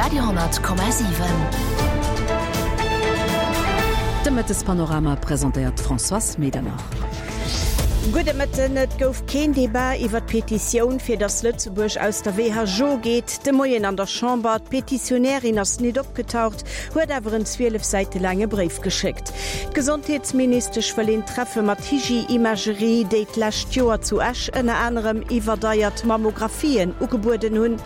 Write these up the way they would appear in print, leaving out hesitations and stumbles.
Radio,7. De Mëttespanorama presentéiert d'Françoise Medernach. Gudde Mëtten. Et gouf keen Debat iwwer d'Petitioun, fir datt Lëtzebuerg aus der WHO geet, de Moien an der Chamber. D'Petitionärin ass nit opgetaucht, huet awer en 12 Säite laange Bréif geschéckt. D'Gesondheetsministesch wëll een Treffe mat Hygie Imagerie, déi d'lescht Joer zu Esch ënner anerem iwwerdeiert Mammographien ugebueden hunn.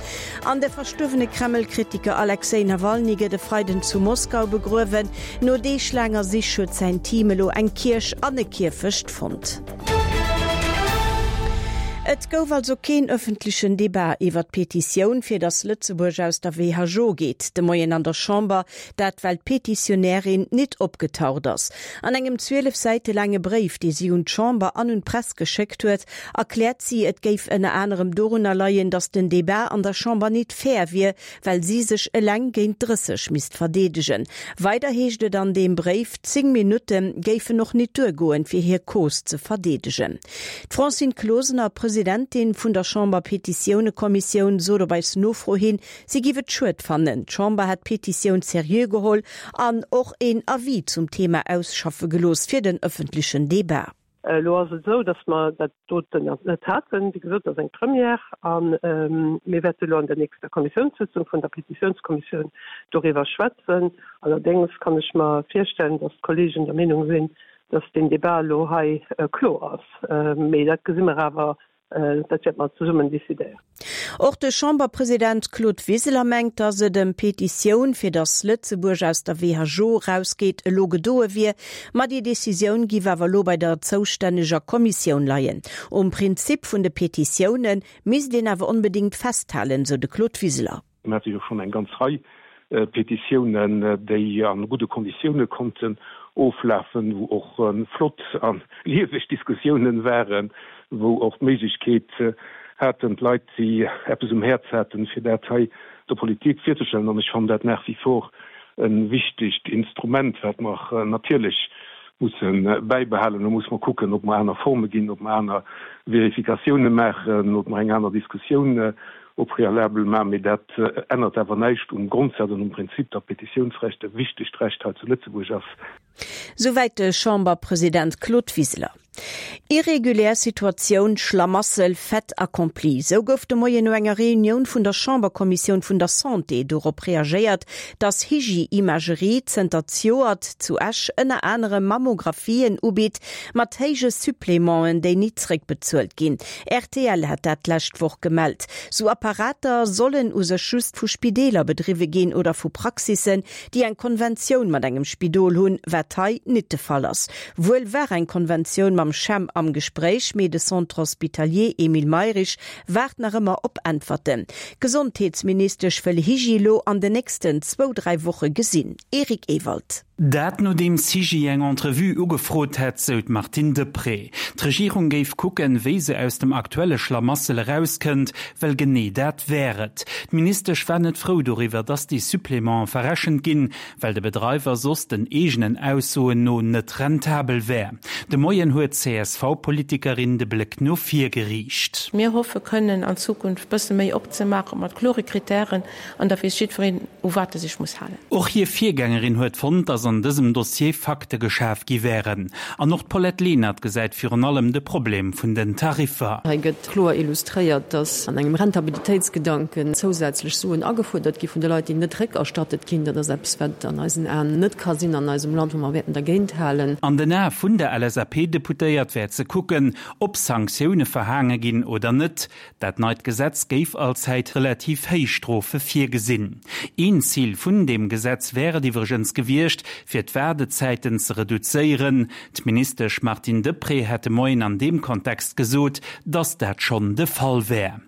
An de verstuerwene Kreml-Kritiker Alexej Nawalny gëtt e Freiden zu Moskau begruewen. No deeglaanger Sich huet säin Team elo eng Kierch an e Kierfecht fonnt. Et gouf also keen ëffentlechen Debat iwwer d'Petitioun, fir datt Lëtzebuerg aus der WHO geet, de Moien an der Chamber. Dat well d'Petitionärin nit opgetaucht ass. An engem 12 Säite laange Bréif, dee si un d'Chamber an un d'Press geschéckt huet, erkläert si, et géif ënner anerem dorunner leien, datt den Debat an der Chamber nit fair wier, well si sech eleng géint 30 misst verdeedegen. Weider heescht et an deem Bréif, 10 Minutte géifen och nit duergoen, fir hir Cause ze verdeedegen. D'Francine Closener, Presidentin vun der Chamber-Petitiounekommissioun, sot op eis Nofro hin, si giff et schued fannen. D'Chamber hätt d'Petitioun seriö geholl an och een Avis zum Thema ausschaffe gelooss fir den ëffentlechen Debat. Elo ass et esou, datt mer dat doten net haten. Wéi gesot, dat ass eng Première a mir wäerte elo an der nächster Kommissiounssëtzung vun der Petitiounskommissioun doriwwer schwätzen. Allerdéngs kann ech mer virstellen, datt d'Kollegen der Meenung sinn, datt deen Débat elo hei kloer ass. Mee dat gesi mer awer Dat wäerte mer zesummen decidéieren. Och de Chamberpresident Claude Wiseler mengt, datt et ëm d'Petitioun, fir datt Lëtzebuerg aus der WHO erausgeet, elo gedoe wier. Ma déi Decisioun giff awer elo bei der zoustänneger Kommissioun leien. Um Prinzip vun de Petitioune misst een awer onbedéngt festhalen, sou de Claude Wiseler. Mir hate jo schonn eng ganz Rei Petitiounen, déi a gudde Konditioune konnten oflafen, wou och flott a lieweg Diskussiounen waren, wou och d'Méiglechkeet haten d'Leit, déi eppes um Häerz haten, fir dat hei der Politik virzestellen. An ech fannen dat nach wie vor e wichtegt Instrument, wat mer natierlech musse bäibehalen. Do musse mer kucken, ob mer aner Forme ginn, ob mer aner Verifikatioune maachen, ob mer eng aner Diskussioun au préalable maachen, mee dat ännert awer näischt um Grondsaz an um Prinzip, datt d'Petitiounsrecht e wichtegt Recht hei zu Lëtzebuerg ass. Souwäit de Chamberpresident Claude Wiseler. Irregulär Situatioun, Schlamassel, Fait accompli, sou gouf de Moien no enger Reunioun vun der Chamberkommissioun vun der Santé dorop reagéiert, datt Hygie Imagerie zënter zejoert zu Esch ënner anerem Mammographien ubitt mat héije Supplémenten, déi nit zréckbezuelt ginn. Rtl hat dat d'lescht Woch gemellt. Sou Apparater sollen u sech just vu Spideeler bedriwwe ginn oder vu Praxissen, déi eng Konventioun mat engem Spidol hunn, wat hei nit de Fall ass. Wuel war eng Konventioun mam CHEM am Gespréich, mee de Centre Hospitalier Emile Mayrisch waart nach ëmmer op Äntwerten. D'Gesondheetsministesch wëll Hygie lo an den nächsten zwou, dräi Woche gesinn. Eric Ewald. Dat nodeems Hygie eng Entrevue ugefrot hätt, sou d'Martine Deprez. D'Regierung géif kucken, wéi se aus dem aktuelle Schlamassel erauskënnt, well genee dat wär et. D'Ministesch war net frou doriwwer, datt déi Supplémenten verrechent ginn, well de Bedreiwer soss den eegenen Aussoen no net rentabel wär. De Moien huet d'CSV-Politikerin de Bléck no vir geriicht. Mir hoffe kënnen an Zukunft bësse méi opzemaachen, mat klore Kritären, an da weess jiddwereen, u wat e sech muss halen. Och hir Virgängerin huet fonnt, datt an dësem Dossier Fakte geschaf gi wären. An och d'Paulette Lenert gesäit virun allem de Problem vun den Tariffer. Hei gëtt kloer illustréiert, datt an engem Rentabilitéitsgedanken zousätzlech Suen agefuerdert gi vun de Leit, déi net réckerstattet ginn. Dat ass eppes, wat an eisen Aen net ka sinn an eisem Land, wou mer wäerten dergéint halen. An den Ae vun der LSAP-Deputéiert wär ze kucken, ob Sanktioune verhaange ginn oder net. Dat neit Gesetz géif allzäit relativ héich Strofe virgesinn. Een Zil vun deem Gesetz wär et iwwregens gewiescht, fir d'Waardezäiten ze reduzéieren. D'Ministesch Martine Deprez hätt de Moien an deem Kontext gesot, datt dat schonn de Fall wär.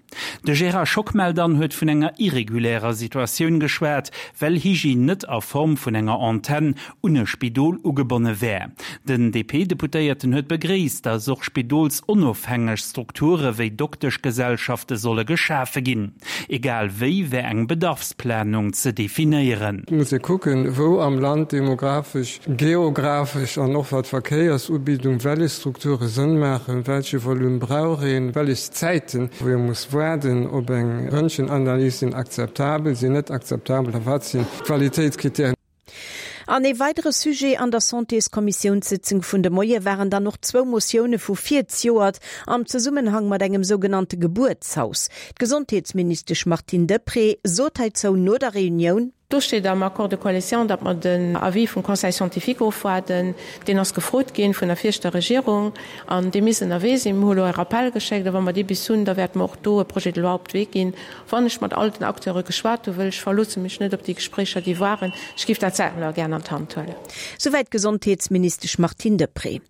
De Gérard Schockmel dann huet vun enger irregulärer Situatioun geschwat, well Hygie net a Form vun enger Antenn un e Spidol ugebonne wär. Den DP-Deputéierten huet begréisst, datt och spidolsonofhängeg Strukture wéi Dokteschgesellschafte solle geschafe ginn. Egal wéi wär eng Bedarfsplanung ze definéieren. Et muss ee kucken, wou am Land demografesch, geografesch an och wat d'Verkéiersubidung, wellech Strukture Sënn maachen, welche Volume brauch een, wellech Zäiten, wou ee muss. Waarden op eng Röntgenanalys sinn akzeptabel, sinn net akzeptabel a wat sinn d'Qualitéitskriterien? An ee weidere Sujet an der Santéskommissiounssitzung vun de Moie waren dann och zwou Motioune vu virzejoert am Zesummenhang mat engem sougenannte Gebuertshaus. D'Gesondheetsministesch Martine Deprez sot heizou no der Reunioun. Do steet am Accord de coalition, datt mer den Avis vum Conseil scientifique ofwaarden. Deen ass gefrot ginn vun der viregter Regierung an dee misst ënnerwee sinn. Mir hu elo e Rappel geschéckt a wa mer dee bis hunn, da wäerte mer och do e Projet de loi op d'Wee ginn. Wann ech mat all den Acteure geschwat hu wëll, ech verloosse mech net op déi Gespréicher, déi waren, ech géif dat selwer gären an d'Hand huelen. Souwäit d'Gesondheetsministesch Martine Deprez.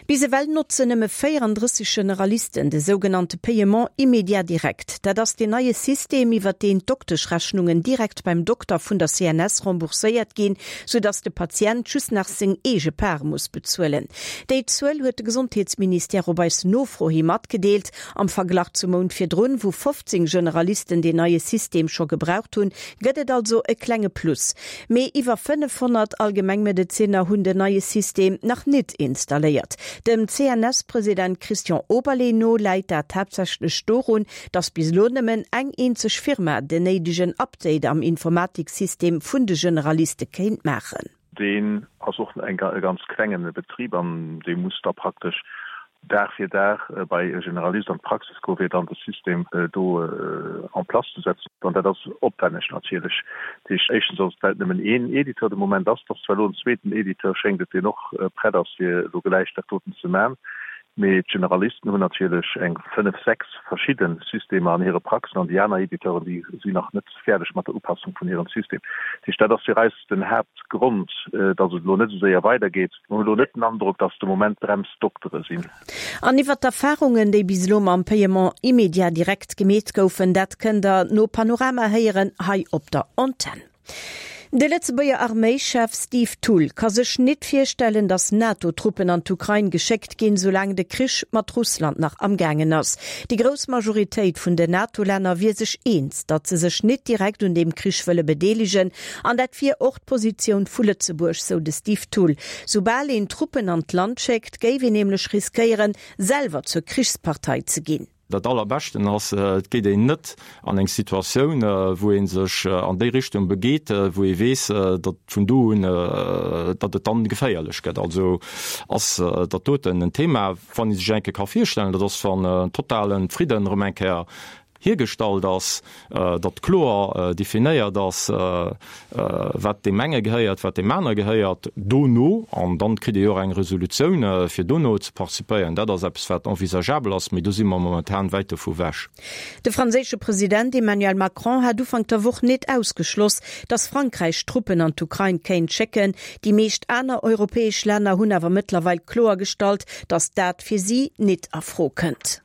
Bis ewell notzen nëmme 34 Generalisten de sougenannte Paiement immédiat direct. Dat ass deen neie System, iwwert deen d'Dokteschrechnungen direkt beim Dokter vun der CNS rembourséiert ginn, soudass de Patient just nach seng eege Part muss bezuelen. Déi Zuel huet de Gesondheetsministère op eis Nofro hi matgedeelt. Am Verglach zum Mount virdrun, wou 15 Generalisten deen neie System scho gebraucht hunn, gëtt et also e klenge Plus. Mee iwwer 500 Allgemengmedezinner hunn den neie System nach nit installéiert. Dem CNS-President Christian Oberlé no läit dat haaptsächlech dorun, datt bis elo nëmmen eng eenzeg Firma den néidegen Update am Informatiksystem vun de Generaliste kéint maachen. Deen ass och e ganz klengen Betrib an dee muss da praktesch Dag fir Dag bei e Generalist an d'Praxis goen, fir dann de System do en place ze setzen. An dat ass opwänneg natierlech. Dat heescht, éischtens ass et, well et nëmmen een Editeur de Moment ass. Et ass zwar elo en zweeten Editeur, schéngt et, deen och prett ass, fir elo gläich dat doten ze man. Mee d'Generalisten hunn natierlech eng fënnef, sechs verschidde Systemer an hire Praxen an déi aner Editeuren, déi sinn nach net fäerdeg mat der Upassung vun hirem System. Dat heescht, dat ass fir eis den Haaptgrond, datt et elo net esou séier weidergeet. Mir hunn elo net den Androck, datt de Moment d'Brems d'Doktere sinn. An iwwer d'Erfarungen, déi bis elo mam Paiement immédiat direct gemeet goufen, dat kënnt der no Panorama héieren hei op der Antenn. De Lëtzebuerger Arméischef Steve Thull ka sech nit virstellen, datt NATO-Truppen an d'Ukrain geschéckt ginn, soulaang de Krich mat Russland nach am gaangen ass. Déi grouss Majoritéit vun den NATO-Länner wier sech eens, datt se sech nit direkt un deem Krich wëlle bedeelegen. An dat wier och d'Positioun vu Lëtzebuerg, sou de Steve Thull. Soubal een Truppen an d'Land schéckt, géif een nämlech riskéieren, selwer zur Krichspartei ze ginn. Dat Allerbeschten ass, et geet een net an eng Situatioun, wou ee sech an déi Richtung begeet, wou ee weess, datt vun do un, datt et dann geféierlech gëtt. Also ass dat doten en Thema, wann ee sech eng Kéier ka virstellen, dat ass, wann en totale Fridden erëm eng Kéier hiergestallt ass, datt kloer definéiert ass, wat deem enge gehéiert, wat deem anere gehéiert, dono, an dann kritt ee jo och eng Resolutioun, fir dono ze participéieren. Dat ass eppes, wat envisageabel ass, mee do si mer momentan wäit dovu wech. De franséische President Emmanuel Macron hat Ufank der Woch net ausgeschloss, datt Frankräich Truppen an d'Ukrain kéint schécken. Déi meescht aner europäesch Länner hunn awer mëttlerweil kloergestallt, datt dat fir si nit a Fro kënnt.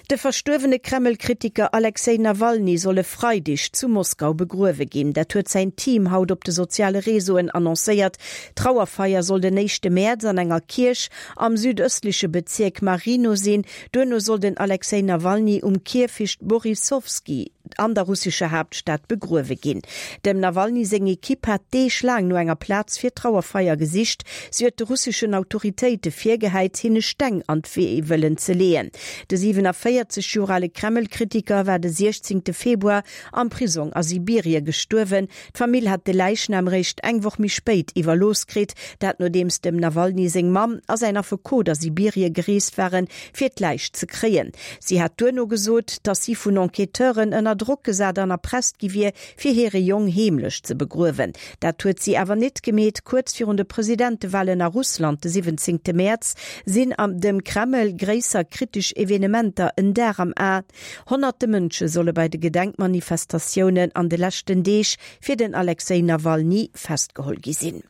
De verstuerwene Kreml-Kritiker Alexej Nawalny soll e Freideg zu Moskau begruewe ginn. Dat huet säin Team haut op de soziale Reseauen annoncéiert. D'Trauerfeier soll den éischte Mäerz an enger Kierch am südëstleche Bezierk Marino sinn. Duerno soll den Alexej Nawalny um Kierfecht Borissowski an der russescher Haaptstad begruewe ginn. Dem Nawalny seng Ekipp hat Deeg laang no enger Plaz fir d'Trauerfeier gesicht. Si huet de russeschen Autoritéite virgehäit, hinne Steng an d'Wee wëllen ze leeën. De 47 Joer ale Kreml-Kritiker war de 16 Februar am Prisong a Sibirie gestuerwen. D'Famill hat de Läichnam réischt eng Woch méi spéit iwwerlooss kritt, dat nodeems dem Nawalny seng Mamm a säin Affekot a Sibirie gereest waren, fir d'Läich ze kréien. Si hat duerno gesot, datt si vun Enquêteuren ënner Drock gesat an erpresst gi wier, fir hire Jong heemlech ze begruewen. Dat huet si awer nit gemeet. Kuerz virun de Presidentewalen a Russland de 17 Mäerz sinn am dem Kreml gréisser kritesch Evenementer en Dar am A. Honnerte Mënsche solle bei de Gedenkmanifestatiounen an de leschten Deeg fir den Alexej Nawalny festgeholl gi sinn.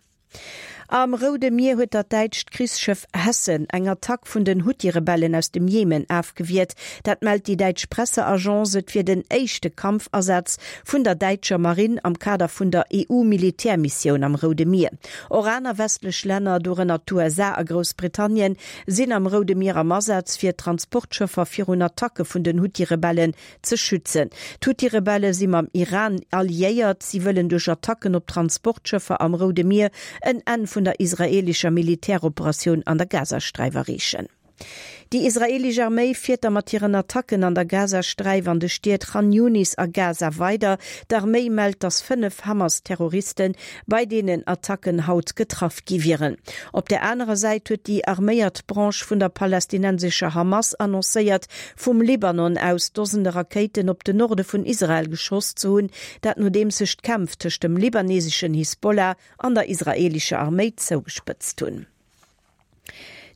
Am Roude Mier huet dat däitscht Krichsschëff Hessen eng Attack vun den Huthi-Rebellen aus dem Jemen afgewiert. Dat mellt déi däitsch Presseagence. Et wier den éischte Kampfasaz vun der däitscher Marinn am Kader vun der EU-Militärmissioun am Roude Mier. Och aner westlech Länner, dorënner d'USA a Groussbritannien, sinn am Roude Mier am Asaz, fir d'Transportschëffer virun Attacke vun den Huthi-Rebellen ze schützen. D'Huthi-Rebelle si mam Iran alliéiert. Si wëllen duerch Attacken op Transportschëffer am Roude Mier en Enn vun der israeelescher Militäroperatioun an der Gazasträif erreechen. Déi israeelesch Arméi fiert da mat hiren Attacken an der Gazasträif an de Stied Chan Yunis a Gaza weider. D'Arméi mellt, datt 5 Hamas-Terroriste bei deenen Attacken haut getraff gi wieren. Op der anerer Säit huet déi arméiert Branche vun der palästinensescher Hamas annoncéiert, vum Libanon aus Dosende Rakéiten op den Norde vun Israel geschoss ze hunn, dat nodeems sech d'Kämpf tëscht dem libaneseschen Hisbollah an der israeelescher Arméi zougespëtzt hunn.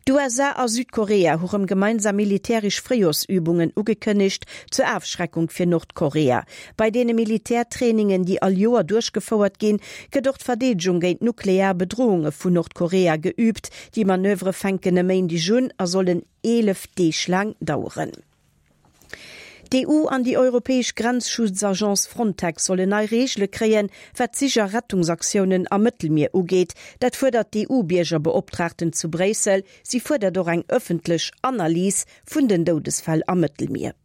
D'USA a Südkorea hu rëm gemeinsam militäresch Fréijoersübungen ugekënnegt, zur Afschreckung fir Nordkorea. Bei deene Militärtrainingen, déi all Joer duerchgefouert ginn, gëtt och d'Verdeedegung géint nuklear Bedrohunge vun Nordkorea geüübt. Déi Manövere fänken e Méindeg un a sollen 11 Deeg laang daueren. D'EU an déi europäesch Grenzschutzagence Frontex sollen nei Reegele kréien, wat d'Sich a Rettungsaktiounen am Mëttelmier ugeet. Dat fuerdert d'EU-Biergerbeoptraagten zu Bréissel. Si fuerdert och eng ëffentlech Analys vun den Doudesfäll am Mëttelmier.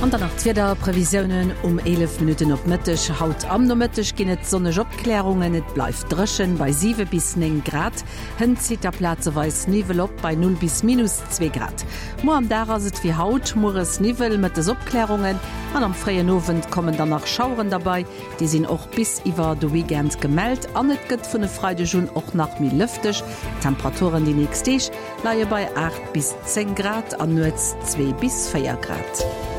An dann nach d'Wiederprevisiounen um 11 Minutten op Mëtteg. Haut am Nomëtteg ginn et sonneg Opklärungen, et bleift dréchen bei 7 bis 9 Grad. Hënt zitt da plazeweis Niwwel op bei 0 bis minus 2 Grad. Muer am Dag ass et wéi haut, mueres Niwwel, mëttes Opklärungen an am fréien Owend kommen dann nach Schaueren derbei. Déi sinn och bis iwwer de Weekend gemellt an et gëtt vun e Freideg un och nach méi lëfteg. D'Temperaturen déi nächst Deeg leie bei 8 bis 10 Grad an nuets 2 bis 4 Grad.